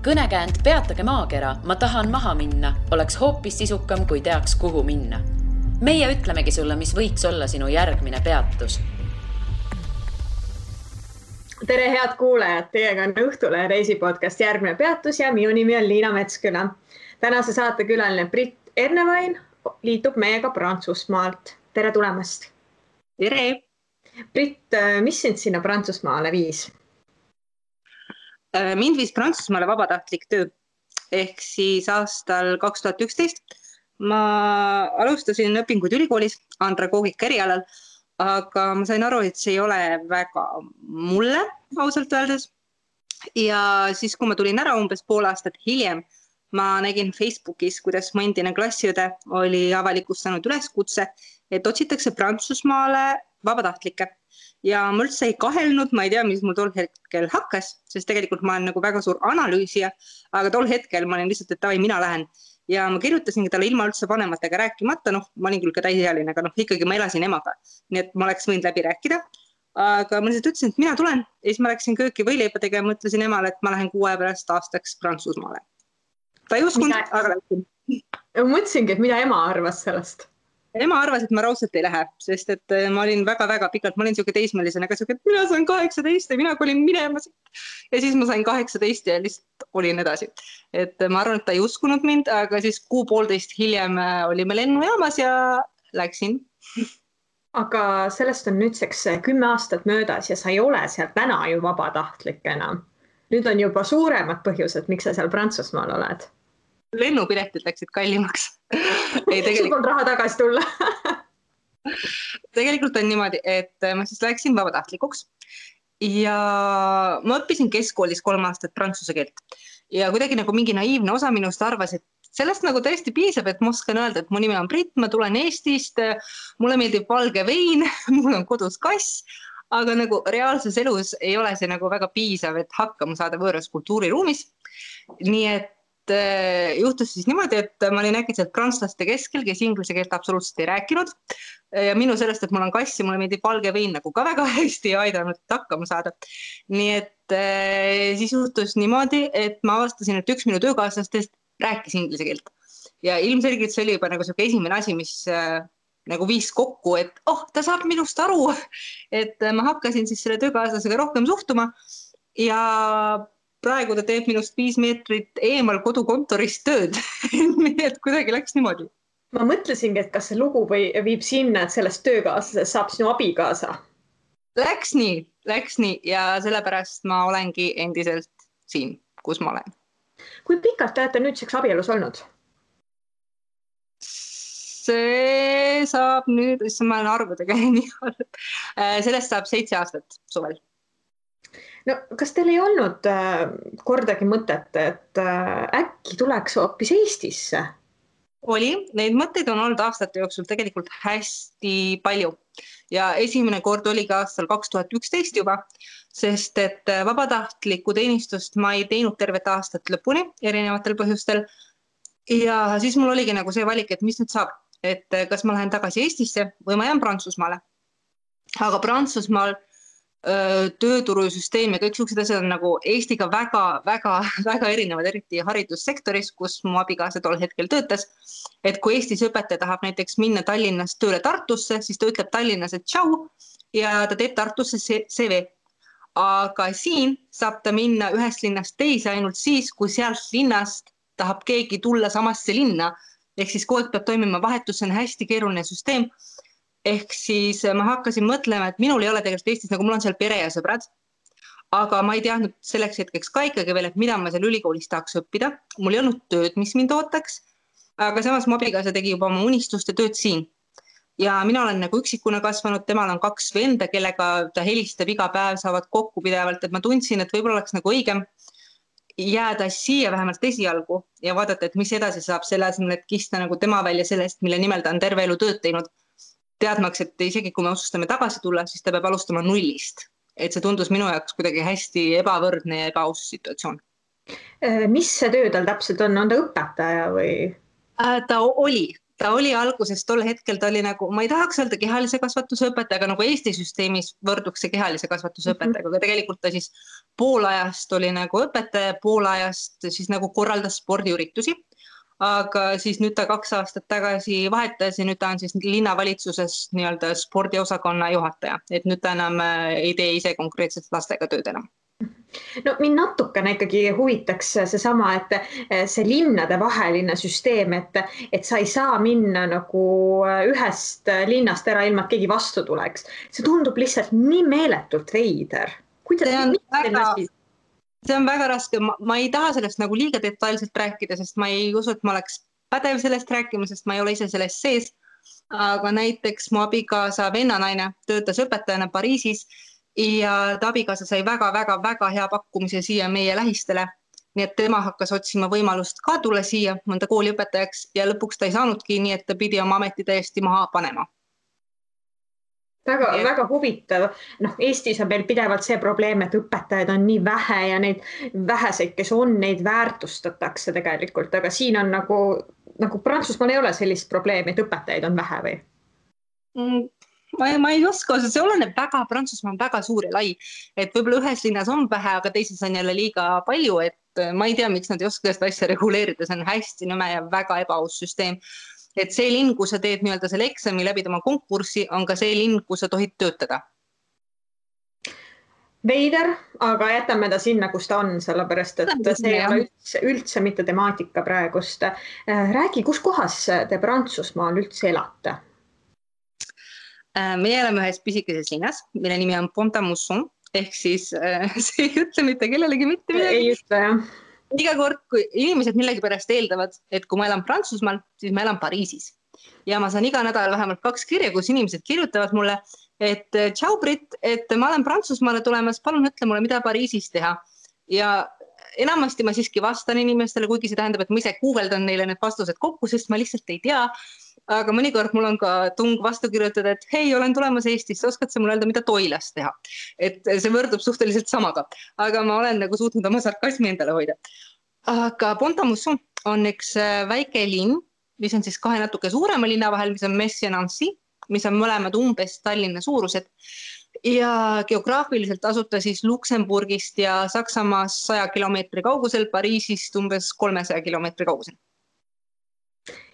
Kõnekäänd Peatage maakera, ma tahan maha minna, oleks hoopis sisukam, kui teaks, kuhu minna. Meie ütlemegi sulle, mis võiks olla sinu järgmine peatus. Tere head kuulajad, teiega on Õhtule reisipodcast Järgmine peatus ja minu nimi on Liina Metsküla. Tänase saate külaline Britt Ernevain liitub meiega Prantsusmaalt. Tere tulemast! Tere! Britt, mis sind sinna Prantsusmaale viis? Mind viis Prantsusmaale vabatahtlik töö. Ehk siis aastal 2011 ma alustasin õpinguid ülikoolis andragoogika erialal, aga ma sain aru, et see ei ole väga mulle, ausalt öeldes. Ja siis, kui ma tulin ära umbes pool aastat hiljem, ma nägin Facebookis, kuidas mu endine klassiõde oli avalikustanud üleskutse, et otsitakse Prantsusmaale vabatahtlikke. Ja ma üldse ei kahelnud, ma ei tea, mis mul tol hetkel hakkas, sest tegelikult ma olen nagu väga suur analüüsija, aga tol hetkel ma olin lihtsalt, et tavai, mina lähen. Ja ma kirjutasingi talle ilma üldse vanematega rääkimata, ma olin küll ka täisealine, aga ikkagi ma elasin emaga. Nii et ma oleks võinud läbi rääkida. Aga ma lihtsalt ütlesin, et mina tulen. Ja siis ma läksin kööki võileipa tegema, mõtlesin emale, et ma lähen 6 aja pärast aastaks Prantsusmaale. Ta ei uskunud, aga läksin. Mõtlesingi, et mida ema arvas sellest? Ema arvas, et ma raudselt ei lähe, sest et ma olin väga-väga pikalt, ma olin siuke teismelisena, aga siuke, et mina sain 18 ja mina olin minema siit. Ja siis ma sain 18 ja lihtsalt olin edasi. Et ma arvan, et ta ei uskunud mind, aga siis 6,5 hiljem olime lennujaamas ja läksin. Aga sellest on nüüdseks 10 aastat möödas ja sa ei ole seal täna ju vabatahtlik enam. Nüüd on juba suuremad põhjused, miks sa seal Prantsusmaal oled. Lennupiletid läksid kallimaks. Sul on raha tagasi tulla. Tegelikult on niimoodi, et ma siis läksin vabatahtlikuks ja ma õppisin keskkoolis 3 aastat prantsuse keelt ja kuidagi nagu mingi naiivne osa minust arvas, et sellest nagu tõesti piisab, et ma oskan öelda, et mu nimi on Britt, ma tulen Eestist, mulle meeldib valge vein, mul on kodus kass, aga nagu reaalses elus ei ole see nagu väga piisav, et hakkama saada võõras kultuuriruumis. Nii et juhtus siis niimoodi, et ma olin äkitselt prantslaste keskel, kes inglise keelt absoluutselt ei rääkinud. Ja minu sellest, et mul on kass ja mulle meeldib valge vein nagu ka väga hästi ei aidanud hakkama saada. Nii et siis juhtus niimoodi, et ma avastasin, et üks minu töökaaslastest rääkis inglise keelt. Ja ilmselgelt see oli juba nagu selline esimene asi, mis nagu viis kokku, et ta saab minust aru. Et ma hakkasin siis selle töökaaslasega rohkem suhtuma ja praegu ta teeb minust 5 meetrit eemal kodukontorist tööd. Nii et kuidagi läks niimoodi. Ma mõtlesingi, et kas see lugu viib sinna, et sellest töökaaslasest saab sinu abikaasa. Läks nii ja sellepärast ma olengi endiselt siin, kus ma olen. Kui pikalt te olete nüüdseks abielus olnud? See saab nüüd, ma olen arvudega nii olnud. Sellest saab 7 aastat suvel. No, kas teil ei olnud kordagi mõtet, et äkki tuleks hoopis Eestisse? Oli, neid mõtteid on olnud aastate jooksul tegelikult hästi palju. Ja esimene kord oli ka aastal 2011 juba, sest et vabatahtlikku teenistust ma ei teinud tervet aastat lõpuni erinevatel põhjustel. Ja siis mul oligi nagu see valik, et mis nüüd saab, et kas ma lähen tagasi Eestisse või ma jään Prantsusmaale. Aga Prantsusmaal tööturusüsteem ja kõik suksed asjad on nagu Eestiga väga erinevad, eriti haridussektoris, kus mu abikaasa tol hetkel töötas. Et kui Eestis õpetaja tahab näiteks minna Tallinnast tööle Tartusse, siis ta ütleb Tallinnas, et tšau ja ta teeb Tartusse CV. Aga siin saab ta minna ühest linnast teise ainult siis, kui sealt linnast tahab keegi tulla samasse linna. Ehk siis kogu aeg peab toimima vahetus, see on hästi keeruline süsteem. Ehk siis ma hakkasin mõtlema, et minul ei ole tegelikult Eestis, nagu mul on seal pere ja sõbrad, aga ma ei teadnud selleks hetkeks ka ikkagi veel, et mida ma seal ülikoolis tahaks õppida. Mul ei olnud tööd, mis mind ootaks, aga samas mu abikaasa tegi juba oma unistuste tööd siin. Ja mina olen nagu üksikuna kasvanud, temal on 2 venda, kellega ta helistab iga päev, saavad kokku pidevalt, et ma tundsin, et võib-olla oleks nagu õigem jääda siia vähemalt esialgu ja vaadata, et mis edasi saab selle asemel, et kista nagu tema välja sellest, mille nimel ta on terve elu tööd teinud. Teadmaks, et isegi kui me otsustame tagasi tulla, siis ta peab alustama nullist. Et see tundus minu jaoks kuidagi hästi ebavõrdne ja ebaaus situatsioon. Mis see töö tal täpselt on? On ta õpetaja või? Ta oli. ta oli alguses tol hetkel, ta oli nagu, ma ei tahaks öelda kehalise kasvatuse õpetaja, aga nagu Eesti süsteemis võrduks see kehalise kasvatuse õpetajaga, aga tegelikult ta siis pool ajast oli nagu õpetaja, pool ajast siis nagu korraldas spordiüritusi. Aga siis nüüd ta 2 aastat tagasi vahetas ja nüüd ta on siis linnavalitsuses nii-öelda spordiosakonna juhataja, et nüüd ta enam ei tee ise konkreetselt lastega tööd enam. No mind natukene ikkagi huvitaks seesama, et see linnade vaheline süsteem, et sa ei saa minna nagu ühest linnast ära ilma, et keegi vastu tuleks. See tundub lihtsalt nii meeletult veider. See on väga raske. Ma ei taha sellest nagu liiga detailselt rääkida, sest ma ei usu, et ma oleks pädev sellest rääkima, sest ma ei ole ise sellest sees. Aga näiteks mu abikaasa vennanaine töötas õpetajana Pariisis ja ta abikaasa sai väga hea pakkumise siia meie lähistele. Nii et tema hakkas otsima võimalust ka tulla siia mõnda kooliõpetajaks ja lõpuks ta ei saanudki, nii et ta pidi oma ameti täiesti maha panema. Väga huvitav. Eestis on meil pidevalt see probleem, et õpetajaid on nii vähe ja neid väheseid, kes on, neid väärtustatakse tegelikult, aga siin on nagu Prantsusmaal ei ole sellist probleemi, et õpetajaid on vähe või? Ma ei oska, see oleneb väga, Prantsusmaa on väga suur ja lai, et võib-olla ühes linnas on vähe, aga teises on jälle liiga palju, et ma ei tea, miks nad ei oska seda asja reguleerida, see on hästi nõme ja väga ebaaus süsteem. Et see linn, kus sa teed nii-öelda selle eksami läbi oma konkurssi, on ka see linn, kus sa tohid töötada. Veider, aga jätame ta sinna, kus ta on, sellepärast, et see ei ole üldse mitte temaatika praegust. Räägi, kus kohas te Prantsusmaal üldse elate? Meie oleme ühes pisikeses linnas, mille nimi on Pont-à-Mousson, ehk siis see ei ütle mitte kellelegi mitte midagi. Ei ütle, jah. Iga kord, kui inimesed millegi pärast eeldavad, et kui ma elan Prantsusmaal, siis ma elan Pariisis. Ja ma saan iga nädal vähemalt 2 kirja, kus inimesed kirjutavad mulle, et tšau Brit, et ma olen Prantsusmaale tulemas, palun ütle mulle, mida Pariisis teha. Ja enamasti ma siiski vastan inimestele, kuigi see tähendab, et ma ise guugeldan neile need vastused kokku, sest ma lihtsalt ei tea. Aga mõnikord mul on ka tung vastu kirjutada, et hei, olen tulemas Eestisse, oskad sa mulle öelda, mida Toilas teha? Et see võrdub suhteliselt samaga, aga ma olen nagu suutnud oma sarkasmi endale hoida. Aga Pont-à-Mousson on üks väike linn, mis on siis 2 natuke suurema linna vahel, mis on Metz ja Nancy, mis on mõlemad umbes Tallinna suurused. Ja geograafiliselt asuta siis Luksemburgist ja Saksamaas 100 kilomeetri kaugusel, Pariisist umbes 300 kilomeetri kaugusel.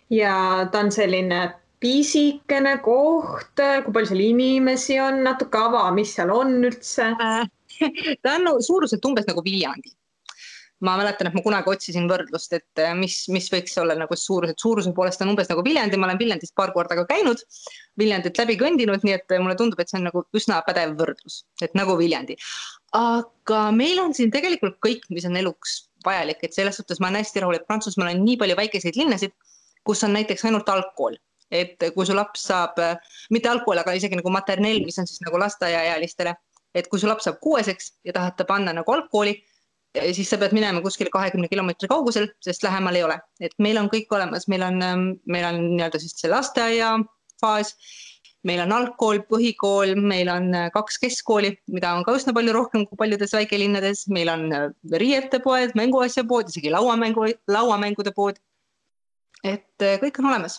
Ja ta on selline pisikene koht, kui palju seal inimesi on, natuke ava, mis seal on üldse? Ta on suuruselt umbes nagu Viljandi. Ma mäletan, et ma kunagi otsisin võrdlust, et mis võiks olla nagu suuruse poolest on umbes nagu Viljandi. Ma olen Viljandist paar korda ka käinud, Viljandit läbi kõndinud, nii et mulle tundub, et see on nagu üsna pädev võrdlus, et nagu Viljandi. Aga meil on siin tegelikult kõik, mis on eluks vajalik, et selles suhtes ma olen hästi rahul, et Prantsusmaal on nii palju väikeseid linnasid, kus on näiteks ainult algkool, et kui su laps saab, mitte algkool, aga isegi nagu materneel, mis on siis nagu lasteaiaealistele, et kui su laps saab 6-eks ja tahad ta panna nagu algkooli, siis sa pead minema kuskil 20 kilomeetri kaugusel, sest lähemal ei ole. Et meil on kõik olemas, meil on nii-öelda siis see lasteaia faas, meil on algkool, põhikool, meil on 2 keskkooli, mida on ka üsna palju rohkem kui paljudes väikelinnades, meil on riietepoed, mänguasjapood, isegi lauamängude pood. Et kõik on olemas.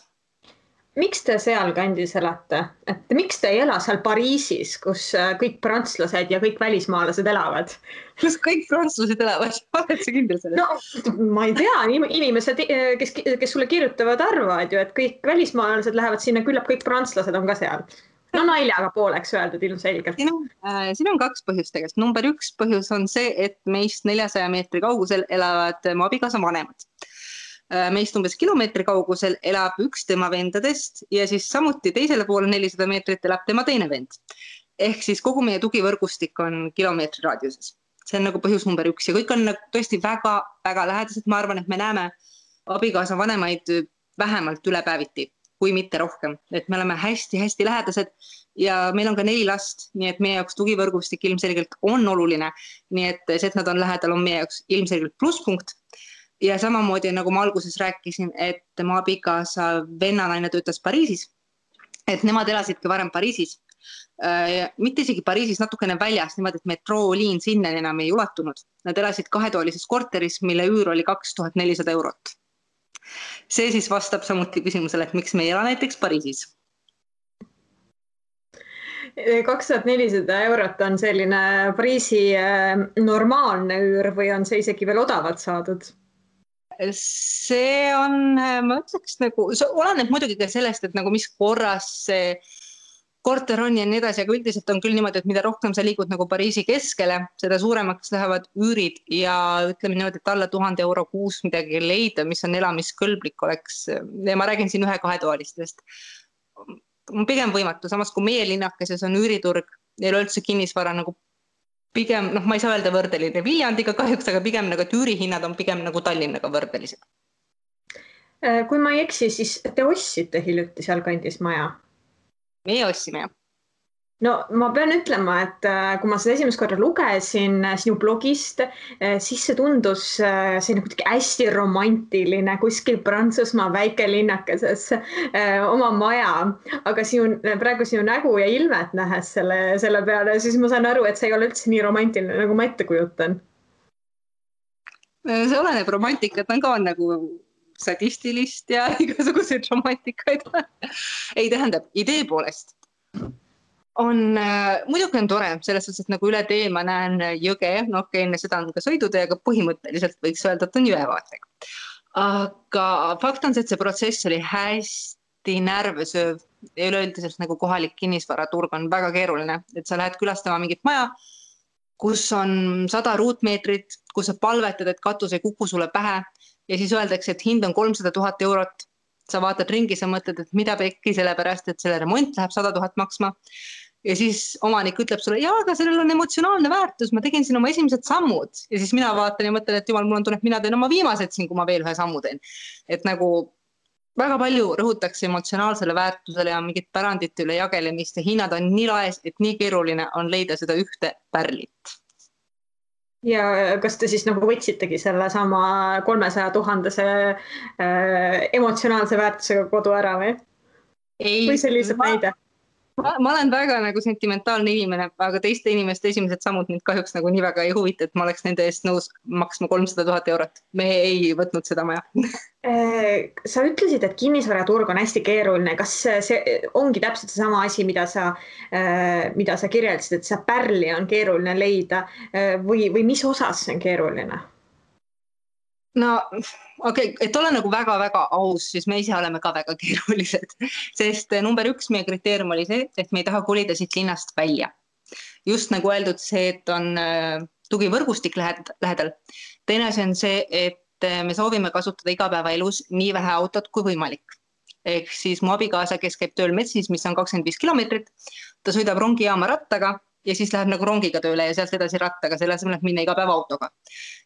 Miks te seal kandis elate? Et miks te ei ela seal Pariisis, kus kõik prantslased ja kõik välismaalased elavad? Kus kõik prantslased elavad? Oled sa kindel sellest? No, ma ei tea. Inimesed, kes sulle kirjutavad, arvavad ju, et kõik välismaalased lähevad sinna, küllap kõik prantslased on ka seal. No naljaga pooleks öeldud ilmselgelt. Siin on 2 põhjust tegelikult. Number 1 põhjus on see, et meist 400 meetri kaugusel elavad mu abikaasa vanemad. Meist umbes kilomeetri kaugusel elab üks tema vendadest ja siis samuti teisele poole 400 meetrit elab tema teine vend. Ehk siis kogu meie tugivõrgustik on kilomeetri raadiuses. See on nagu põhjus number 1 ja kõik on tõesti väga lähedased. Ma arvan, et me näeme abikaasa vanemaid vähemalt üle päeviti, kui mitte rohkem. Et me oleme hästi lähedased ja meil on ka 4 last, nii et meie jaoks tugivõrgustik ilmselgelt on oluline. Nii et see, et nad on lähedal, on meie jaoks ilmselgelt plusspunkt. Ja samamoodi, nagu ma alguses rääkisin, et mu abikaasa vennanaine töötas Pariisis, et nemad elasidki varem Pariisis. Mitte isegi Pariisis, natukene väljas, niimoodi, et metrooliin sinna enam ei ulatunud. Nad elasid 2-toalises korteris, mille üür oli 2400 €. See siis vastab samuti küsimusele, et miks me ei ela näiteks Pariisis. 2400 eurot on selline Pariisi normaalne üür või on see isegi veel odavalt saadud? See on, ma ütleks nagu, see oleneb muidugi ka sellest, et nagu mis korras see korter on ja nii edasi, aga üldiselt on küll niimoodi, et mida rohkem sa liigud nagu Pariisi keskele, seda suuremaks lähevad üürid ja ütleme niimoodi, et alla 1000 euro kuus midagi leida, mis on elamiskõlblik oleks. Ja ma räägin siin 1-2-toalistest. Pigem võimatu, samas kui meie linnakeses on üüriturg ja üleüldse kinnisvara nagu pigem, ma ei saa öelda võrdeline Viljandiga kahjuks, aga pigem nagu, et üürihinnad on pigem nagu Tallinnaga võrdelised. Kui ma ei eksi, siis te ostsite hiljuti seal kandis maja? Meie ostsime, jah. No ma pean ütlema, et kui ma seda esimest korda lugesin sinu blogist, siis see tundus selline kuidagi hästi romantiline kuskil Prantsusmaa väikelinnakeses oma maja, aga praegu sinu nägu ja ilmet nähes selle peale, siis ma saan aru, et see ei ole üldse nii romantiline, nagu ma ette kujutan. See oleneb romantikat, on ka nagu sadistilist ja igasuguseid romantikaid. Ei tähendab, idee poolest muidugi on tore, selles suhtes, et nagu üle tee ma näen jõge, enne seda on ka sõidutee, aga põhimõtteliselt võiks öelda, et on jõevaatega. Aga fakt on see, et see protsess oli hästi närvesööv ja üleüldiselt nagu kohalik kinnisvaraturg on väga keeruline, et sa lähed külastama mingit maja, kus on 100 ruutmeetrit, kus sa palvetad, et katus ei kuku sulle pähe ja siis öeldakse, et hind on 300 000 eurot. Sa vaatad ringi, sa mõtled, et mida pekki, sellepärast, et selle remont läheb 100 000 maksma. Ja siis omanik ütleb sulle, jaa, aga sellel on emotsionaalne väärtus, ma tegin siin oma esimesed sammud. Ja siis mina vaatan ja mõtlen, et jumal, mul on tunne, et mina teen oma viimased siin, kui ma veel ühe sammu teen. Et nagu väga palju rõhutakse emotsionaalsele väärtusele ja mingit pärandite üle jagelemist ja hinnad on nii laes, et nii keeruline on leida seda ühte pärlit. Ja kas te siis nagu võtsitegi selle sama 300 000 emotsionaalse väärtusega kodu ära või? Või see lihtsalt näide? Ma olen väga nagu sentimentaalne inimene, aga teiste inimeste esimesed sammud mind kahjuks nagu nii väga ei huvita, et ma oleks nende eest nõus maksma 300 000 eurot. Me ei võtnud seda maja. Sa ütlesid, et kinnisvaraturg on hästi keeruline. Kas see ongi täpselt sama asi, mida sa kirjeldasid, et see pärli on keeruline leida või mis osas see on keeruline? No okei, et ole nagu väga-väga aus, siis me ise oleme ka väga keerulised, sest number 1 meie kriteerium oli see, et me ei taha kolida siit linnast välja. Just nagu öeldud see, et on tugivõrgustik lähedal. Teine asi on see, et me soovime kasutada igapäevaelus nii vähe autot kui võimalik. Ehk siis mu abikaasa, kes käib tööl Metsis, mis on 25 kilomeetrit, ta sõidab rongijaama rattaga ja siis läheb nagu rongiga tööle ja sealt edasi rattaga, selle asemel, et minna iga päev autoga.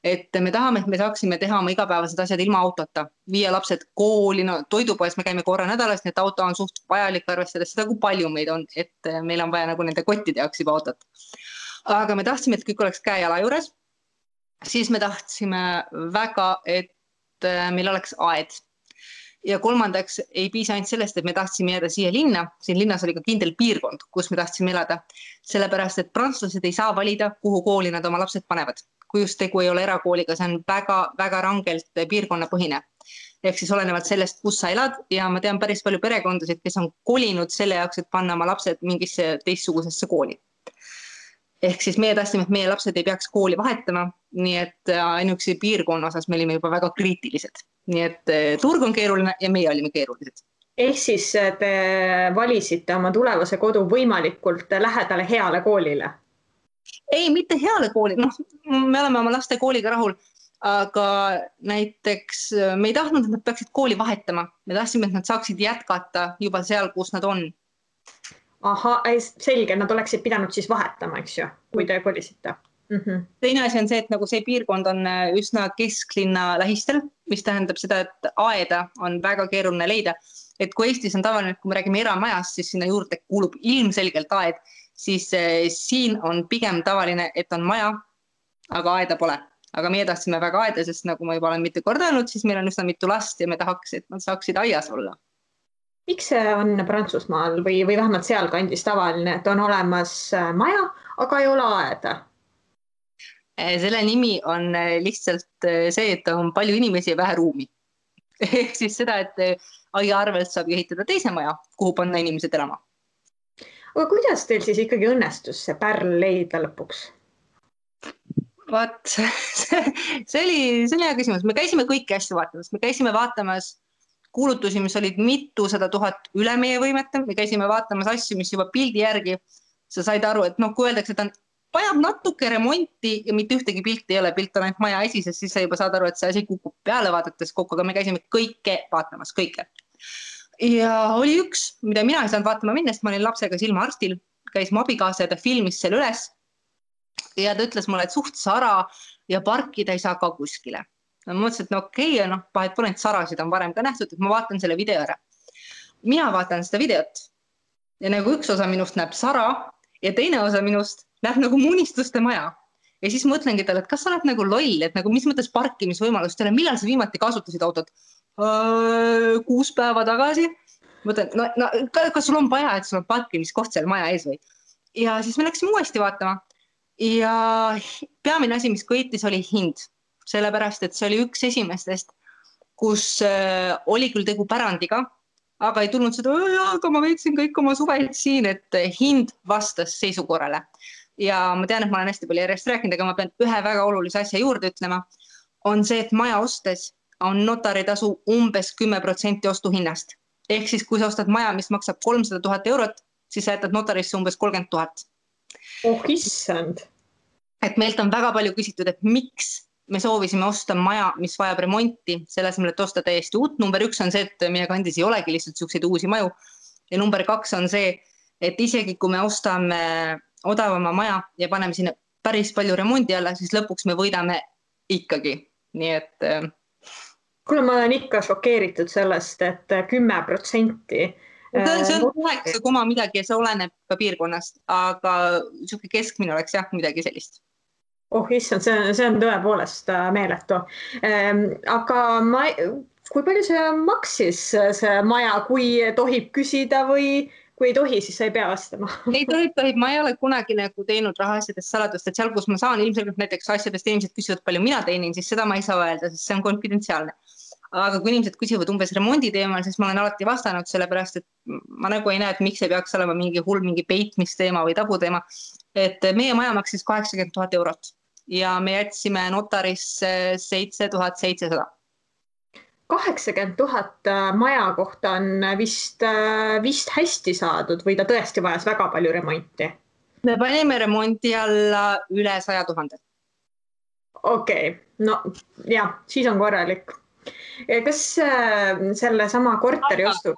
Et me tahame, et me saaksime teha oma igapäevased asjad ilma autota, viia lapsed kooli, toidupoes me käime korra nädalas, nii et auto on suht vajalik arvestades seda, kui palju meid on, et meil on vaja nagu nende kottide jaoks juba autot. Aga me tahtsime, et kõik oleks käe-jala juures, siis me tahtsime väga, et meil oleks aed. Ja kolmandaks ei piisa ainult sellest, et me tahtsime jääda siia linna. Siin linnas oli ka kindel piirkond, kus me tahtsime elada. Sellepärast, et prantslased ei saa valida, kuhu kooli nad oma lapsed panevad. Kui just tegu ei ole erakooliga, see on väga rangelt piirkonnapõhine. Ehk siis olenevalt sellest, kus sa elad ja ma tean päris palju perekondasid, kes on kolinud selle jaoks, et panna oma lapsed mingisse teistsugusesse kooli. Ehk siis meie tahtsime, et meie lapsed ei peaks kooli vahetama, nii et ainuüksi piirkonna osas me olime juba väga kriitilised. Nii et turg on keeruline ja meie olime keerulised. Ehk siis te valisite oma tulevase kodu võimalikult lähedale heale koolile? Ei, mitte heale kooli. Me oleme oma laste kooliga rahul, aga näiteks me ei tahtnud, et nad peaksid kooli vahetama. Me tahtsime, et nad saaksid jätkata juba seal, kus nad on. Aha, selge, nad oleksid pidanud siis vahetama, eks ju, kui te kolisite. Teine asi on see, et nagu see piirkond on üsna kesklinna lähistel, mis tähendab seda, et aeda on väga keeruline leida. Et kui Eestis on tavaline, et kui me räägime eramajast, siis sinna juurde kuulub ilmselgelt aed, siis siin on pigem tavaline, et on maja, aga aeda pole. Aga meie tahtsime väga aeda, sest nagu ma juba olen mitu korda öelnud, siis meil on üsna mitu last ja me tahaks, et nad saaksid aias olla. Miks see on Prantsusmaal või vähemalt seal kandis tavaline, et on olemas maja, aga ei ole aeda? Selle nimi on lihtsalt see, et on palju inimesi ja vähe ruumi. ehk siis seda, et aia arvelt saab ehitada teise maja, kuhu panna inimesed elama. aga kuidas teil siis ikkagi õnnestus see pärl leida lõpuks? Vaat, see oli hea küsimus. Me käisime kõiki asju vaatamas. Me käisime vaatamas kuulutusi, mis olid mitusada tuhat üle meie võimete. Me käisime vaatamas asju, mis juba pildi järgi sa said aru, et kui öeldakse, et vajab natuke remonti ja mitte ühtegi pilti ei ole, pilt on ainult maja esises, siis sa juba saad aru, et see asi kukub peale vaadates kokku, aga me käisime kõike vaatamas, kõike. Ja oli üks, mida mina ei saanud vaatama minna, sest ma olin lapsega silmaarstil, käis mu abikaasa ja ta filmis selle üles. Ja ta ütles mulle, et suht sara ja parkida ei saa ka kuskile. Ma mõtlesin, et okei, vahet pole, et sarasid on varem ka nähtud, et ma vaatan selle video ära. Mina vaatan seda videot ja nagu üks osa minust näeb sara ja teine osa minust näeb nagu munistuste maja. Ja siis mõtlengi talle, et kas sa oled nagu loll, et nagu mis mõttes parkimisvõimalust ei ole, millal sa viimati kasutasid autot? 6 päeva tagasi. Mõtlen, kas sul on vaja, et sul on parkimiskoht seal maja ees või? Ja siis me läksime uuesti vaatama. Ja peamine asi, mis kõitis, oli hind. Sellepärast, et see oli üks esimestest, kus oli küll tegu pärandiga, aga ei tulnud seda, aga ma veetsin kõik oma suveid siin, et hind vastas seisukorrale. Ja ma tean, et ma olen hästi palju järjest rääkinud, aga ma pean ühe väga olulise asja juurde ütlema, on see, et maja ostes on notaritasu umbes 10% ostuhinnast. Ehk siis, kui sa ostad maja, mis maksab 300 000 eurot, siis sa jätad notarisse umbes 30 000. Oh, issand. Et meilt on väga palju küsitud, et miks me soovisime osta maja, mis vajab remonti, selle asemel, et osta täiesti uut. Number 1 on see, et meie kandis ei olegi lihtsalt selliseid uusi maju. Ja number 2 on see, et isegi kui me ostame odavama maja ja paneme sinna päris palju remondi alla, siis lõpuks me võidame ikkagi. Nii et... Kuule, ma olen ikka šokeeritud sellest, et 10%. See on 9, midagi ja see oleneb ka piirkonnast, aga siuke keskmine oleks jah midagi sellist. Oh, issand, see on tõepoolest meeletu. Aga kui palju see maksis see maja, kui tohib küsida või kui ei tohi, siis sa ei pea vastama? Ei tohib. Ma ei ole kunagi nagu teinud rahaasjadest saladust, et seal, kus ma saan ilmselgelt näiteks asjadest inimesed küsivad, palju mina teinin, siis seda ma ei saa öelda, sest see on konfidentsiaalne. Aga kui inimesed küsivad umbes remondi teemal, siis ma olen alati vastanud sellepärast, et ma nagu ei näe, et miks ei peaks olema mingi peitmisteema või tabuteema. Et meie maja maksis 80 000 eurot ja me jätsime notarisse 7700. 80 000 maja kohta on vist hästi saadud või ta tõesti vajas väga palju remonti? Me panime remonti alla üle 100 000. Okei, no jah, siis on korralik. Kas selle sama korteri ostu?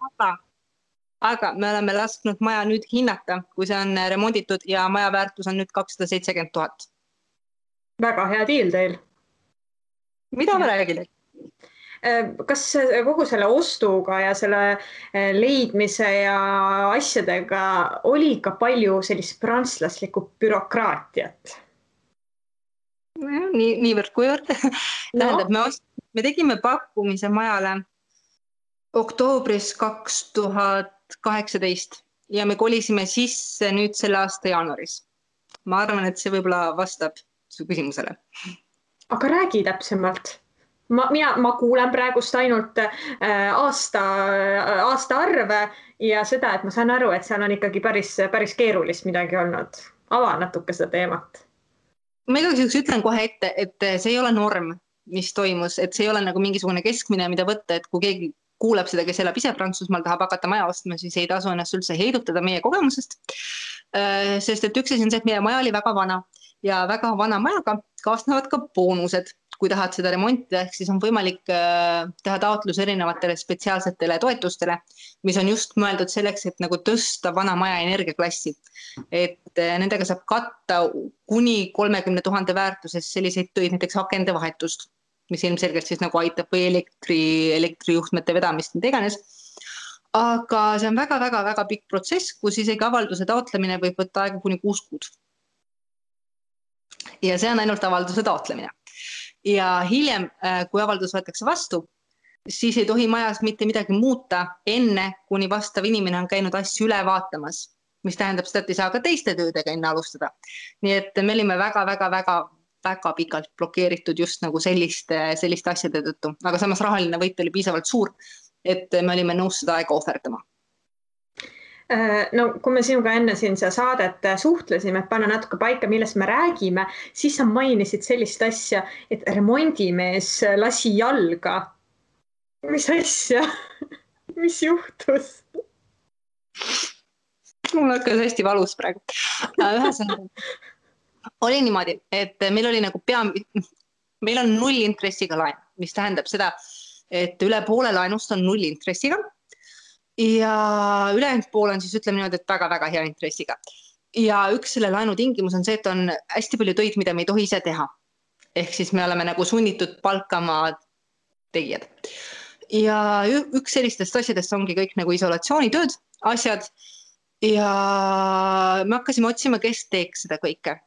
Aga me oleme lasknud maja nüüd hinnata, kui see on remonditud ja maja väärtus on nüüd 270 000. Väga hea diil teil. Mida ma räägin? Kas kogu selle ostuga ja selle leidmise ja asjadega oli ka palju sellist prantslaslikku bürokraatiat? Niivõrd kuivõrd. Tähendab, me tegime pakkumise majale oktoobris 2018 ja me kolisime sisse nüüd selle aasta jaanuaris. Ma arvan, et see võib-olla vastab su küsimusele. Aga räägi täpsemalt. Ma kuulen praegust ainult aasta arve ja seda, et ma saan aru, et seal on ikkagi päris keerulist midagi olnud. Ava natuke seda teemat. Ma igaks ütlen kohe ette, et see ei ole norm, mis toimus, et see ei ole nagu mingisugune keskmine, mida võtta, et kui keegi kuuleb seda, kes elab ise Prantsusmaal, tahab hakata maja ostma, siis ei tasu ennast üldse heidutada meie kogemusest. Sest et üks asi on see, et meie maja oli väga vana ja väga vana majaga kaasnevad ka boonused. Kui tahad seda remontida, siis on võimalik teha taotlus erinevatele spetsiaalsetele toetustele, mis on just mõeldud selleks, et nagu tõsta vana maja energiaklassi. Et nendega saab katta kuni 30 000 väärtuses selliseid töid, näiteks akende vahetust, mis ilmselgelt siis nagu aitab või elektrijuhtmete vedamist, mida iganes. Aga see on väga pikk protsess, kus isegi avalduse taotlemine võib võtta aega kuni 6 kuud. Ja see on ainult avalduse taotlemine. Ja hiljem, kui avaldus võetakse vastu, siis ei tohi majas mitte midagi muuta enne, kuni vastav inimene on käinud asju üle vaatamas, mis tähendab seda, et ei saa ka teiste töödega enne alustada. Nii et me olime väga väga pikalt blokeeritud just nagu selliste asjade tõttu, aga samas rahaline võit oli piisavalt suur, et me olime nõus seda aega ohverdama. No kui me sinuga enne siin seda saadet suhtlesime, et panna natuke paika, millest me räägime, siis sa mainisid sellist asja, et remondimees lasi jalga. Mis asja? Mis juhtus? Mul hakkas hästi valus praegu. Ühesõnaga, oli niimoodi, et meil oli nagu meil on 0 intressiga laen, mis tähendab seda, et üle poole laenust on 0 intressiga ja ülejäänud pool on siis ütleme niimoodi, et väga-väga hea intressiga. Ja üks selle laenu tingimus on see, et on hästi palju töid, mida me ei tohi ise teha. Ehk siis me oleme nagu sunnitud palkama tegijad. Ja üks sellistest asjadest ongi kõik nagu isolatsioonitööd, asjad. Ja me hakkasime otsima, kes teeks seda kõike.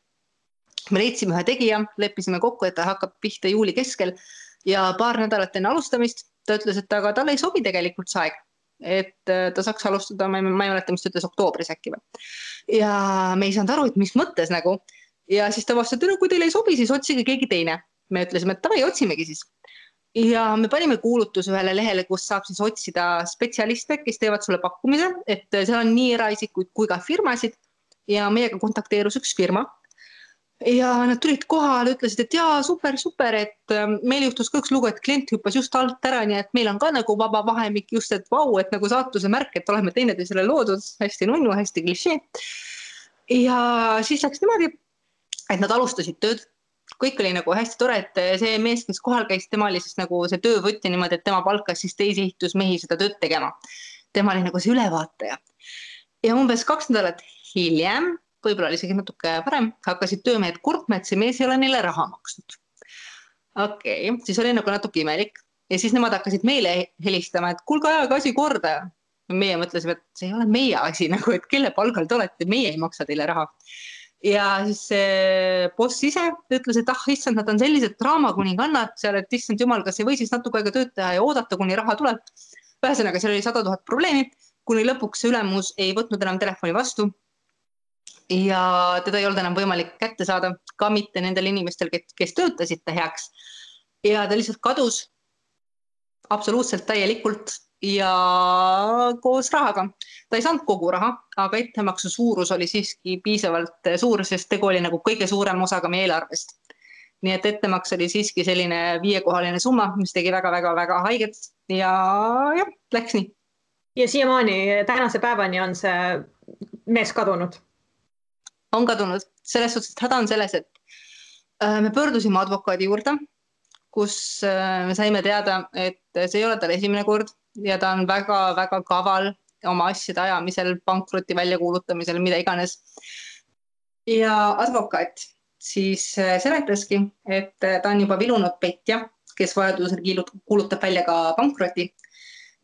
Me leidsime ühe tegija, leppisime kokku, et ta hakkab pihta juuli keskel ja paar nädalat enne alustamist ta ütles, et aga talle ei sobi tegelikult see aeg. Et ta saaks alustada, ma ei mäleta, mis ta ütles oktoobris äkki või. Ja me ei saanud aru, et mis mõttes nagu. Ja siis ta vastas, et kui teile ei sobi, siis otsige keegi teine. Me ütlesime, et tavai, otsimegi siis. Ja me panime kuulutuse ühele lehele, kus saab siis otsida spetsialiste, kes teevad sulle pakkumise, et seal on nii eraisikuid kui ka firmasid ja meiega kontakteerus üks firma. Ja nad tulid kohale, ütlesid, et jaa, super, et meil juhtus ka üks lugu, et klient hüppas just alt ära, nii et meil on ka nagu vaba vahemik just, et vau, et nagu saatuse märk, et oleme teineteisele loodud, hästi nunnu, hästi klišee. Ja siis läks niimoodi, et nad alustasid tööd. Kõik oli nagu hästi tore, et see mees, kes kohal käis, tema oli siis nagu see töövõtja niimoodi, et tema palkas siis teisi ehitusmehi seda tööd tegema. Tema oli nagu see ülevaataja. Ja umbes 2 nädalat hiljem, võib-olla oli isegi natuke varem, hakkasid töömehed kurtma, et see mees ei ole neile raha maksnud. Okei, siis oli nagu natuke imelik. Ja siis nemad hakkasid meile helistama, et kuulge ajaga asi korda. Ja meie mõtlesime, et see ei ole meie asi, nagu, et kelle palgal te olete, meie ei maksa teile raha. Ja siis see boss ise ütles, et issand, nad on sellised draamakuningannad seal, et issand jumal, kas ei või siis natuke aega tööd teha ja oodata, kuni raha tuleb. Ühesõnaga, seal oli 100 000 probleemi, kuni lõpuks see ülemus ei võtnud enam telefoni vastu. Ja teda ei olnud enam võimalik kätte saada, ka mitte nendel inimestel, kes töötasid ta heaks. Ja ta lihtsalt kadus absoluutselt täielikult ja koos rahaga. Ta ei saanud kogu raha, aga ettemaksu suurus oli siiski piisavalt suur, sest tegu oli nagu kõige suurem osaga meie eelarvest. Nii et ettemaks oli siiski selline 5-kohaline summa, mis tegi väga-väga-väga haiget ja läks nii. Ja siiamaani tänase päevani on see mees kadunud? On kadunud. Selles suhtes, et häda on selles, et me pöördusime advokaadi juurde, kus me saime teada, et see ei ole tal esimene kord ja ta on väga-väga kaval oma asjade ajamisel, pankroti väljakuulutamisel, mida iganes. Ja advokaat siis seletaski, et ta on juba vilunud petja, kes vajadusel kuulutab välja ka pankroti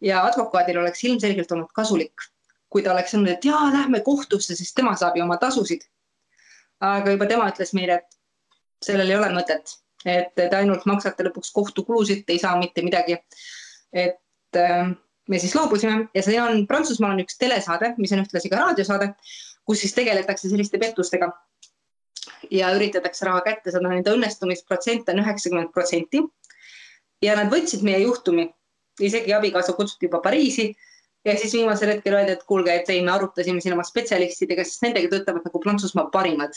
ja advokaadil oleks ilmselgelt olnud kasulik, kui ta oleks öelnud, et jaa, lähme kohtusse, sest tema saab ju oma tasusid. Aga juba tema ütles meile, et sellel ei ole mõtet, et te ainult maksate lõpuks kohtukulusid, ei saa mitte midagi. Et me siis loobusime ja see on Prantsusmaal on üks telesaade, mis on ühtlasi ka raadiosaade, kus siis tegeletakse selliste pettustega ja üritatakse raha kätte saada. Nende õnnestumisprotsent on 90% ja nad võtsid meie juhtumi, isegi abikaasa kutsuti juba Pariisi. Ja siis viimasel hetkel öeldi, et kuulge, et me arutasime siin oma spetsialistidega, sest nendega töötavad nagu Prantsusmaa parimad.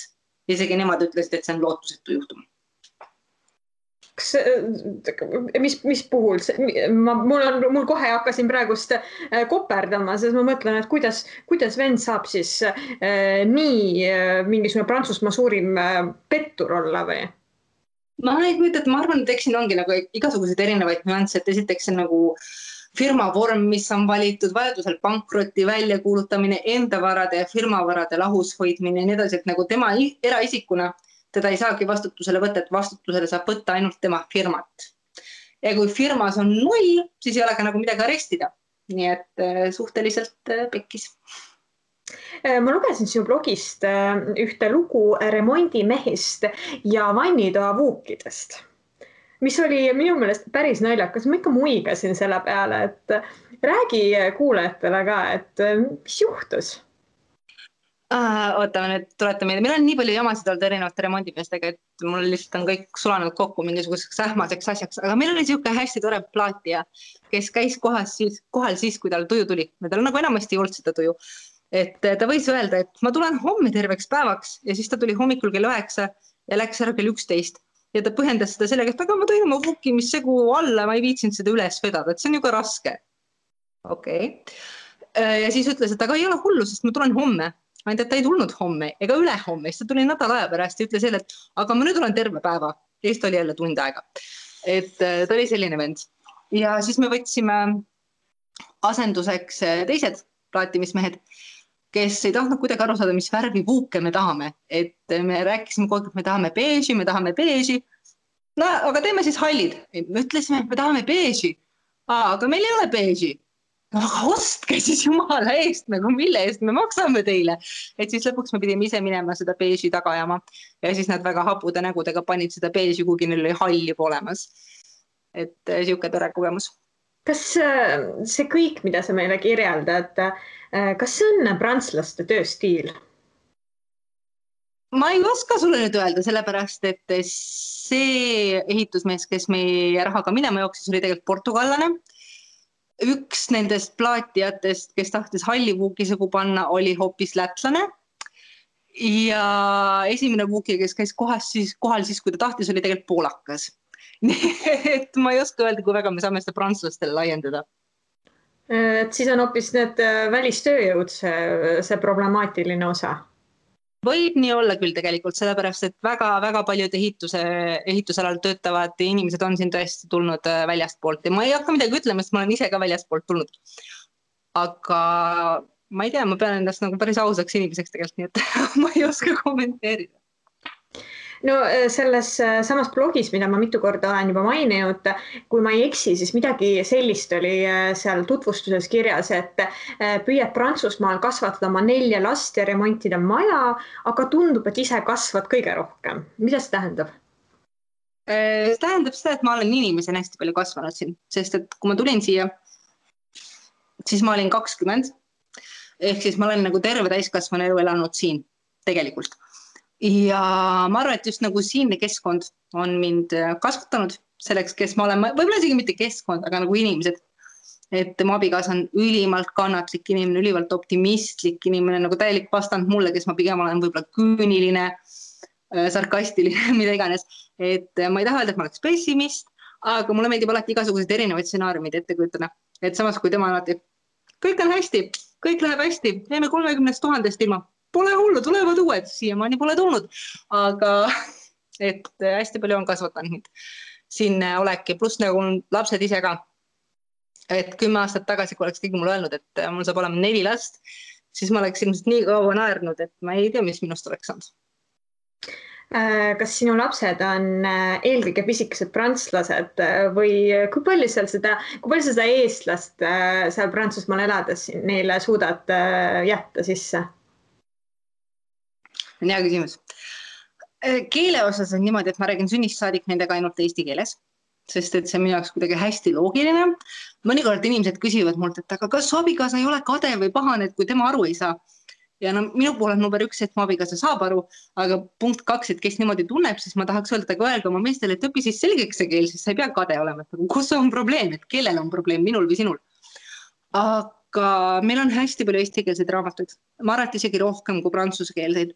Isegi nemad ütlesid, et see on lootusetu juhtum. Mis puhul? Mul kohe hakkasin praegust koperdama, sest ma mõtlen, et kuidas vend saab siis nii mingisugune Prantsusmaa suurim pettur olla või? Ma arvan, et eks siin ongi nagu igasuguseid erinevaid nüansse, et esiteks see nagu firma vorm, mis on valitud, vajadusel pankroti väljakuulutamine, enda varade ja firmavarade lahus hoidmine ja nii edasi, et nagu tema eraisikuna teda ei saagi vastutusele võtta, et vastutusele saab võtta ainult tema firmat. Ja kui firmas on 0, siis ei ole ka nagu midagi arestida. Nii et suhteliselt pekkis. Ma lugesin sinu blogist ühte lugu remondimehist ja vannitoa vuukidest, mis oli minu meelest päris naljakas. Ma ikka muigasin selle peale, et räägi kuulajatele ka, et mis juhtus? Ootame nüüd, tuletame meelde. Meil on nii palju jamasid olnud erinevate remondimeestega, et mul lihtsalt on kõik sulanud kokku mingisuguseks ähmaseks asjaks, aga meil oli niisugune hästi tore plaatija, kes käis kohal siis, kui tal tuju tuli. Tal nagu enamasti ei olnud seda tuju. Et ta võis öelda, et ma tulen homme terveks päevaks ja siis ta tuli hommikul kell 9 ja läks ära kell 11. Ja ta põhjendas seda sellega, et aga ma tõin oma vukkimissegu alla, ma ei viitsinud seda üles vedada, et see on ju ka raske. Okei. Ja siis ütles, et aga ei ole hullu, sest ma tulen homme. Ainult, et ta ei tulnud homme ega ülehomme, siis ta tuli nädal aja pärast ja ütles jälle, et aga ma nüüd olen terve päeva. Ja siis ta oli jälle tund aega. Et ta oli selline vend. Ja siis me võtsime asenduseks teised plaatimismehed, kes ei tahtnud kuidagi aru saada, mis värvi vuuke me tahame. Et me rääkisime kogu aeg, et me tahame beeži. No, aga teeme siis hallid. Me ütlesime, et me tahame beeži. Aga meil ei ole beeži. No, aga ostke siis jumala eest, nagu mille eest me maksame teile. Et siis lõpuks me pidime ise minema seda beeži tagajama. Ja siis nad väga hapude nägudega panid seda beeži, kuigi neil oli halli olemas. Et siuke tore kogemus. Kas see kõik, mida sa meile kirjeldad, kas see on prantslaste tööstiil? Ma ei oska sulle nüüd öelda, sellepärast, et see ehitusmees, kes meie rahaga minema jooksis, oli tegelikult portugallane. Üks nendest plaatijatest, kes tahtis halli vuukisegu panna, oli hoopis lätlane. Ja esimene vuuki, kes käis kohal siis, kui ta tahtis, oli tegelikult poolakas. Nii et ma ei oska öelda, kui väga me saame seda prantslastele laiendada. Et siis on hoopis need välistööjõud see problemaatiline osa. Võib nii olla küll tegelikult, sellepärast, et väga paljud ehitusalal töötavad inimesed on siin tõesti tulnud väljastpoolt ja ma ei hakka midagi ütlema, sest ma olen ise ka väljastpoolt tulnud. Aga ma ei tea, ma pean endast nagu päris ausaks inimeseks tegelikult, nii et ma ei oska kommenteerida. No selles samas blogis, mida ma mitu korda olen juba maininud, kui ma ei eksi, siis midagi sellist oli seal tutvustuses kirjas, et püüad Prantsusmaal kasvatada oma 4 last ja remontida maja, aga tundub, et ise kasvad kõige rohkem. Mida see tähendab? See tähendab seda, et ma olen inimesena hästi palju kasvanud siin, sest et kui ma tulin siia, siis ma olin 20, ehk siis ma olen nagu terve täiskasvanu elu elanud siin tegelikult. Ja ma arvan, et just nagu siinne keskkond on mind kasvatanud selleks, kes ma olen, võib-olla isegi mitte keskkond, aga nagu inimesed. Et mu abikaasa on ülimalt kannatlik inimene, ülimalt optimistlik inimene, nagu täielik vastand mulle, kes ma pigem olen võib-olla küüniline, sarkastiline, mida iganes. Et ma ei taha öelda, et ma oleks pessimist, aga mulle meeldib alati igasugused erinevaid stsenaariumid ette kujutada. Et samas, kui tema alati, kõik on hästi, kõik läheb hästi, teeme 30 000 ilma. Pole hullu, tulevad uued, siiamaani pole tulnud, aga et hästi palju on kasvatanud mind siin olek ja pluss nagu lapsed ise ka. Et 10 aastat tagasi, kui oleks keegi mulle öelnud, et mul saab olema 4 last, siis ma oleks ilmselt nii kaua naernud, et ma ei tea, mis minust oleks saanud. Kas sinu lapsed on eelkõige pisikesed prantslased või kui palju sa seda eestlast seal Prantsusmaal elades neile suudad jätta sisse? On hea küsimus. Keele osas on niimoodi, et ma räägin sünnist saadik nendega ainult eesti keeles, sest et see on minu jaoks kuidagi hästi loogiline. Mõnikord inimesed küsivad mult, et aga kas su abikaasa ei ole kade või pahane, et kui tema aru ei saa. Ja no, minu pool on number 1, et mu abikaasa saab aru, aga punkt 2, et kes niimoodi tunneb, siis ma tahaks öelda, aga öelge oma meestele, et õpi siis selgeks see keel, siis sa ei pea kade olema. Kus on probleem, et kellel on probleem, minul või sinul? Aga meil on hästi palju eestikeelseid raamatuid. Ma arvan, et isegi rohkem kui prantsuskeelseid.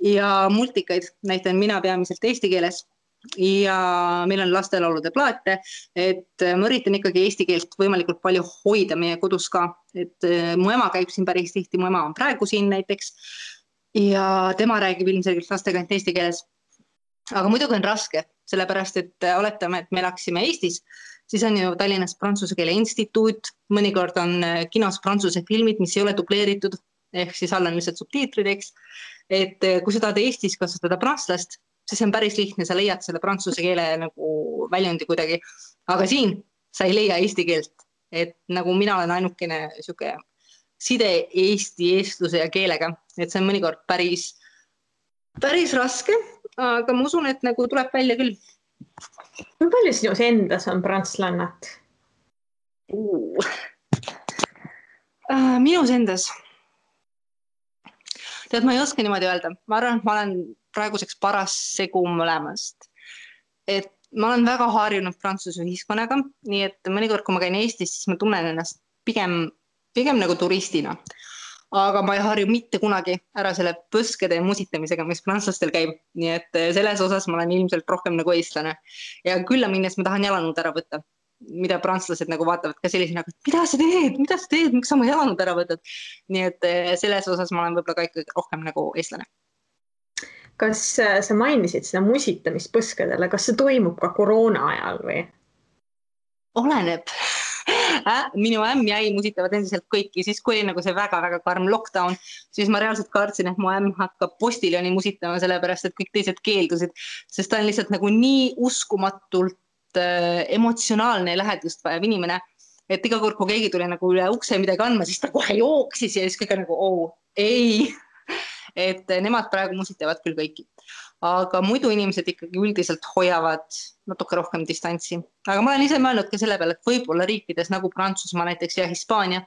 Ja multikaid näitan mina peamiselt eesti keeles. Ja meil on lastelaulude plaate, et ma üritan ikkagi eesti keelt võimalikult palju hoida meie kodus ka. Et mu ema käib siin päris tihti, mu ema on praegu siin näiteks. Ja tema räägib ilmselgelt lastega eesti keeles. Aga muidugi on raske, sellepärast, et oletame, et me läksime Eestis, siis on ju Tallinnas Prantsuse keele instituut, mõnikord on kinos prantsuse filmid, mis ei ole dubleeritud, ehk siis all on lihtsalt subtiitrid, eks. Et kui sa tahad Eestis kasutada prantslast, siis on päris lihtne, sa leiad selle prantsuse keele nagu väljundi kuidagi. Aga siin sa ei leia eesti keelt, et nagu mina olen ainukene siuke side Eesti, eestluse ja keelega, et see on mõnikord päris raske, aga ma usun, et nagu tuleb välja küll. Kui palju sinus endas on prantslannat? Minus endas. Tead, ma ei oska niimoodi öelda. Ma arvan, et ma olen praeguseks paras segu mõlemast. Et ma olen väga harjunud Prantsuse ühiskonnaga, nii et mõnikord, kui ma käin Eestis, siis ma tunnen ennast pigem nagu turistina. Aga ma ei harju mitte kunagi ära selle põskede musitamisega, mis prantslastel käib. Nii et selles osas ma olen ilmselt rohkem nagu eestlane. Ja külla minnes ma tahan jalanõud ära võtta, mida prantslased nagu vaatavad ka sellisena, et mida sa teed, miks sa oma jalanõud ära võtad. Nii et selles osas ma olen võib-olla ka ikkagi rohkem nagu eestlane. Kas sa mainisid seda musitamist põskedele, kas see toimub ka koroona ajal või? Oleneb. Minu ämm ja ei musitavad endiselt kõiki, siis kui oli nagu see väga-väga karm lockdown, siis ma reaalselt kartsin, et mu ämm hakkab postiljoni musitama, sellepärast et kõik teised keeldusid, sest ta on lihtsalt nagu nii uskumatult emotsionaalne ja lähedust vajav inimene, et iga kord, kui keegi tuli nagu üle ukse midagi andma, siis ta kohe jooksis ja siis kõik nagu, ei. Et nemad praegu musitavad küll kõiki. Aga muidu inimesed ikkagi üldiselt hoiavad natuke rohkem distantsi. Aga ma olen ise mõelnud ka selle peale, et võib-olla riikides nagu Prantsusmaa näiteks ja Hispaania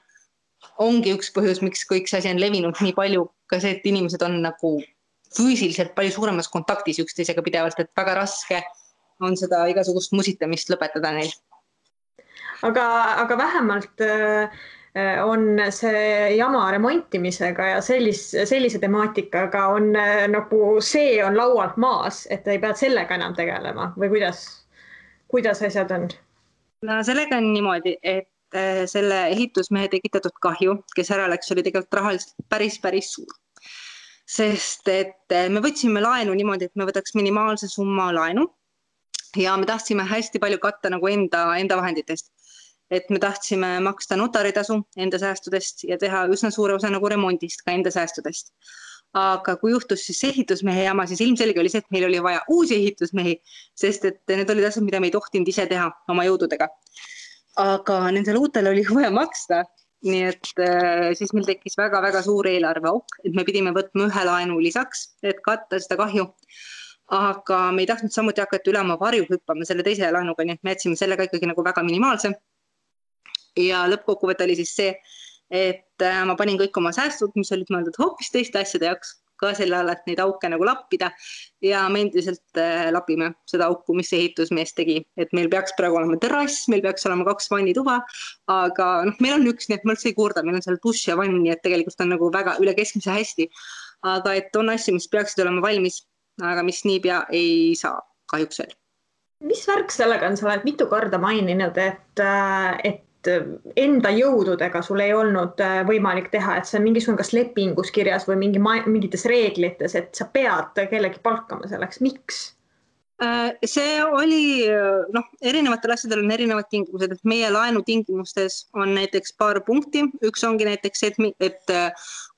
ongi üks põhjus, miks kõik see asi on levinud nii palju, ka see, et inimesed on nagu füüsiliselt palju suuremas kontaktis üksteisega pidevalt, et väga raske on seda igasugust musitamist lõpetada neil. Aga vähemalt on see jama remontimisega ja sellise temaatikaga on nagu see on laualt maas, et ei pead sellega enam tegelema või kuidas asjad on? No sellega on niimoodi, et selle ehitusmehe tekitatud kahju, kes ära läks, oli tegelikult rahaliselt päris suur. Sest et me võtsime laenu niimoodi, et me võtaks minimaalse summa laenu ja me tahtsime hästi palju katta nagu enda vahenditest. Et me tahtsime maksta notaritasu enda säästudest ja teha üsna suure osa nagu remondist ka enda säästudest. Aga kui juhtus siis ehitusmehe jama, siis ilmselge oli see, et meil oli vaja uusi ehitusmehi, sest et need olid asjad, mida me ei tohtinud ise teha oma jõududega. Aga nendele uutele oli vaja maksta, nii et siis meil tekkis väga-väga suur eelarveauk, et me pidime võtma ühe laenu lisaks, et katta seda kahju. Aga me ei tahtnud samuti hakata üle oma varju hüppama selle teise laenuga, nii et me jätsime sellega ikkagi nagu väga minimaalse. Ja lõppkokkuvõtt oli siis see, et ma panin kõik oma säästud, mis olid mõeldud hoopis teiste asjade jaoks, ka selle all, et neid auke nagu lappida ja me endiselt lapime seda auku, mis ehitusmees tegi. Et meil peaks praegu olema terrass, meil peaks olema 2 vannituba, aga meil on üks, nii et ma üldse ei kurda, meil on seal dušš ja vann, nii et tegelikult on nagu väga üle keskmise hästi. Aga et on asju, mis peaksid olema valmis, aga mis niipea ei saa kahjuks veel. Mis värk sellega on, sa oled mitu korda maininud, et enda jõududega sul ei olnud võimalik teha, et see on mingisugune kas lepingus kirjas või mingites reeglites, et sa pead kellegi palkama selleks. Miks? See oli, erinevatel asjadel on erinevad tingimused, et meie laenu tingimustes on näiteks paar punkti. Üks ongi näiteks, et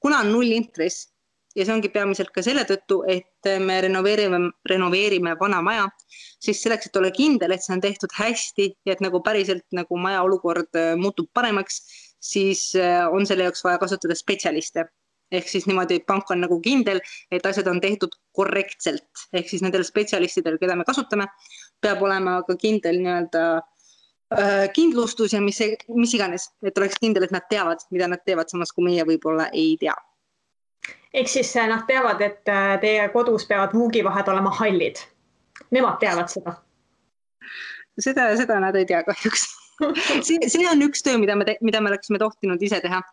kuna on 0 intress ja see ongi peamiselt ka selle tõttu, et me renoveerime vana maja, siis selleks, et ole kindel, et see on tehtud hästi ja et nagu päriselt nagu maja olukord muutub paremaks, siis on selle jaoks vaja kasutada spetsialiste. Ehk siis niimoodi, et pank on nagu kindel, et asjad on tehtud korrektselt. Ehk siis nendel spetsialistidel, keda me kasutame, peab olema ka kindel kindlustus ja mis iganes, et oleks kindel, et nad teavad, mida nad teevad, samas kui meie võib-olla ei tea. Ehk siis nad teavad, et teie kodus peavad vuugivahed olema hallid. Nemad teavad seda. Seda nad ei tea kahjuks. See on üks töö, mida me oleksime tohtinud ise teha,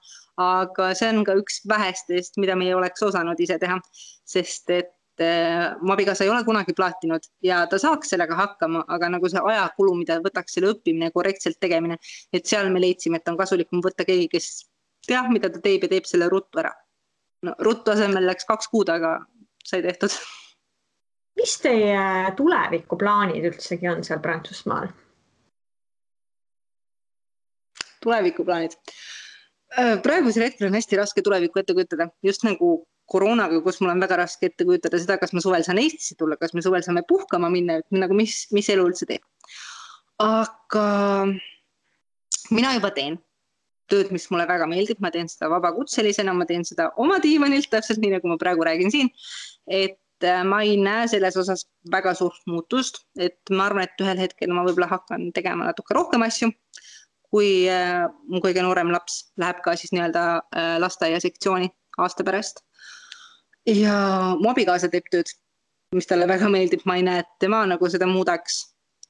aga see on ka üks vähestest, mida me ei oleks osanud ise teha, sest et mu abikaasa ei ole kunagi plaatinud ja ta saaks sellega hakkama, aga nagu see ajakulu, mida võtaks selle õppimine ja korrektselt tegemine, et seal me leidsime, et on kasulikum võtta keegi, kes teab, mida ta teeb ja teeb selle ruttu ära. No, ruttu asemel läks 2 kuud, aga sai tehtud. Mis teie tulevikuplaanid üldsegi on seal Prantsusmaal? Tulevikuplaanid. Praegusel hetkel on hästi raske tulevikku ette kujutada. Just nagu koroonaga, kus mul on väga raske ette kujutada seda, kas me suvel saan Eestisse tulla, kas me suvel saame puhkama minna, nagu mis elu üldse teeb. Aga mina juba teen tööd, mis mulle väga meeldib, ma teen seda vabakutselisena, ma teen seda oma diivanilt, täpselt nii, nagu ma praegu räägin siin, et ma ei näe selles osas väga suurt muutust, et ma arvan, et ühel hetkel ma võib-olla hakkan tegema natuke rohkem asju, kui mu kõige noorem laps läheb ka siis nii-öelda lasteaia sektsiooni aasta pärast. ja mu abikaasa teeb tööd, mis talle väga meeldib, ma ei näe, et tema nagu seda muudaks.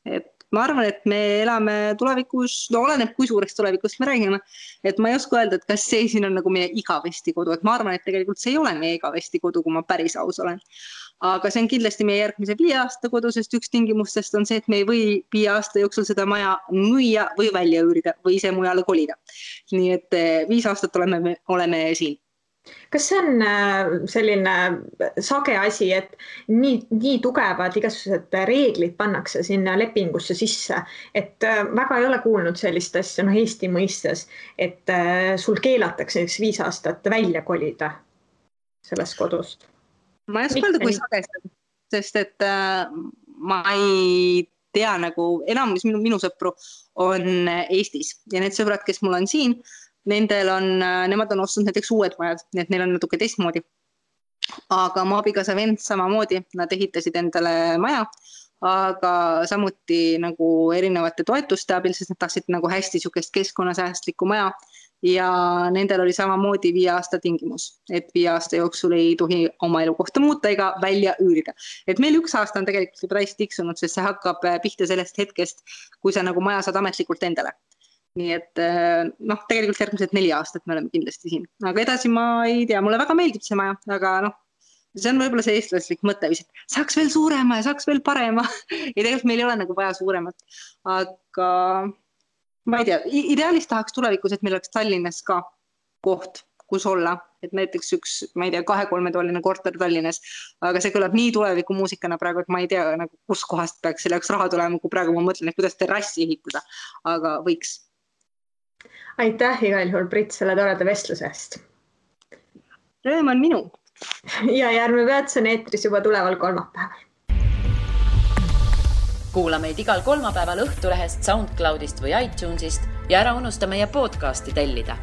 Et ma arvan, et me elame tulevikus, no oleneb, kui suureks tulevikust me räägime, et ma ei oska öelda, et kas see siin on nagu meie igavesti kodu, et ma arvan, et tegelikult see ei ole meie igavesti kodu, kui ma päris aus olen. Aga see on kindlasti meie järgmise 5 aasta kodu, sest üks tingimustest on see, et me ei või 5 aasta jooksul seda maja müüa või välja üürida või ise mujale kolida. Nii et 5 aastat oleme siin. Kas see on selline sage asi, et nii tugevad igasugused reeglid pannakse sinna lepingusse sisse, et väga ei ole kuulnud sellist asja, Eesti mõistes, et sul keelatakse 5 aastat välja kolida sellest kodust? Ma ei oska öelda, kui sagesti, sest et ma ei tea, nagu enamus minu sõpru on Eestis ja need sõbrad, kes mul on siin, nemad on ostnud näiteks uued majad, nii et neil on natuke teistmoodi. Aga mu abikaasa vend samamoodi, nad ehitasid endale maja, aga samuti nagu erinevate toetuste abil, sest nad tahtsid nagu hästi sükest keskkonnasäästlikku maja ja nendel oli samamoodi 5 aasta tingimus, et 5 aasta jooksul ei tohi oma elukohta muuta ega välja üürida. Et meil 1 aasta on tegelikult juba täis tiksunud, sest see hakkab pihta sellest hetkest, kui sa nagu maja saad ametlikult endale. Nii et tegelikult järgmised 4 aastat me oleme kindlasti siin. Aga edasi ma ei tea, mulle väga meeldib see maja, aga see on võib-olla see eestlaslik mõttevis, et saaks veel suurema ja saaks veel parema. Ja tegelikult meil ei ole nagu vaja suuremat. Aga ma ei tea, ideaalis tahaks tulevikus, et meil oleks Tallinnas ka koht, kus olla. Et näiteks üks, ma ei tea, 2-3-toaline korter Tallinnas. Aga see kõlab nii tuleviku muusikana praegu, et ma ei tea, nagu, kus kohast peaks selle jaoks raha tulema, kui praegu ma mõtlen, et kuidas terrassi ehitada. Aga võiks. Aitäh igal juhul, Brit, selle toreda vestluse eest. Rõõm on minu. Ja Järve Peatus on eetris juba tuleval kolmapäeval. Kuula meid igal kolmapäeval Õhtulehest, SoundCloudist või iTunesist ja ära unusta meie podcasti tellida.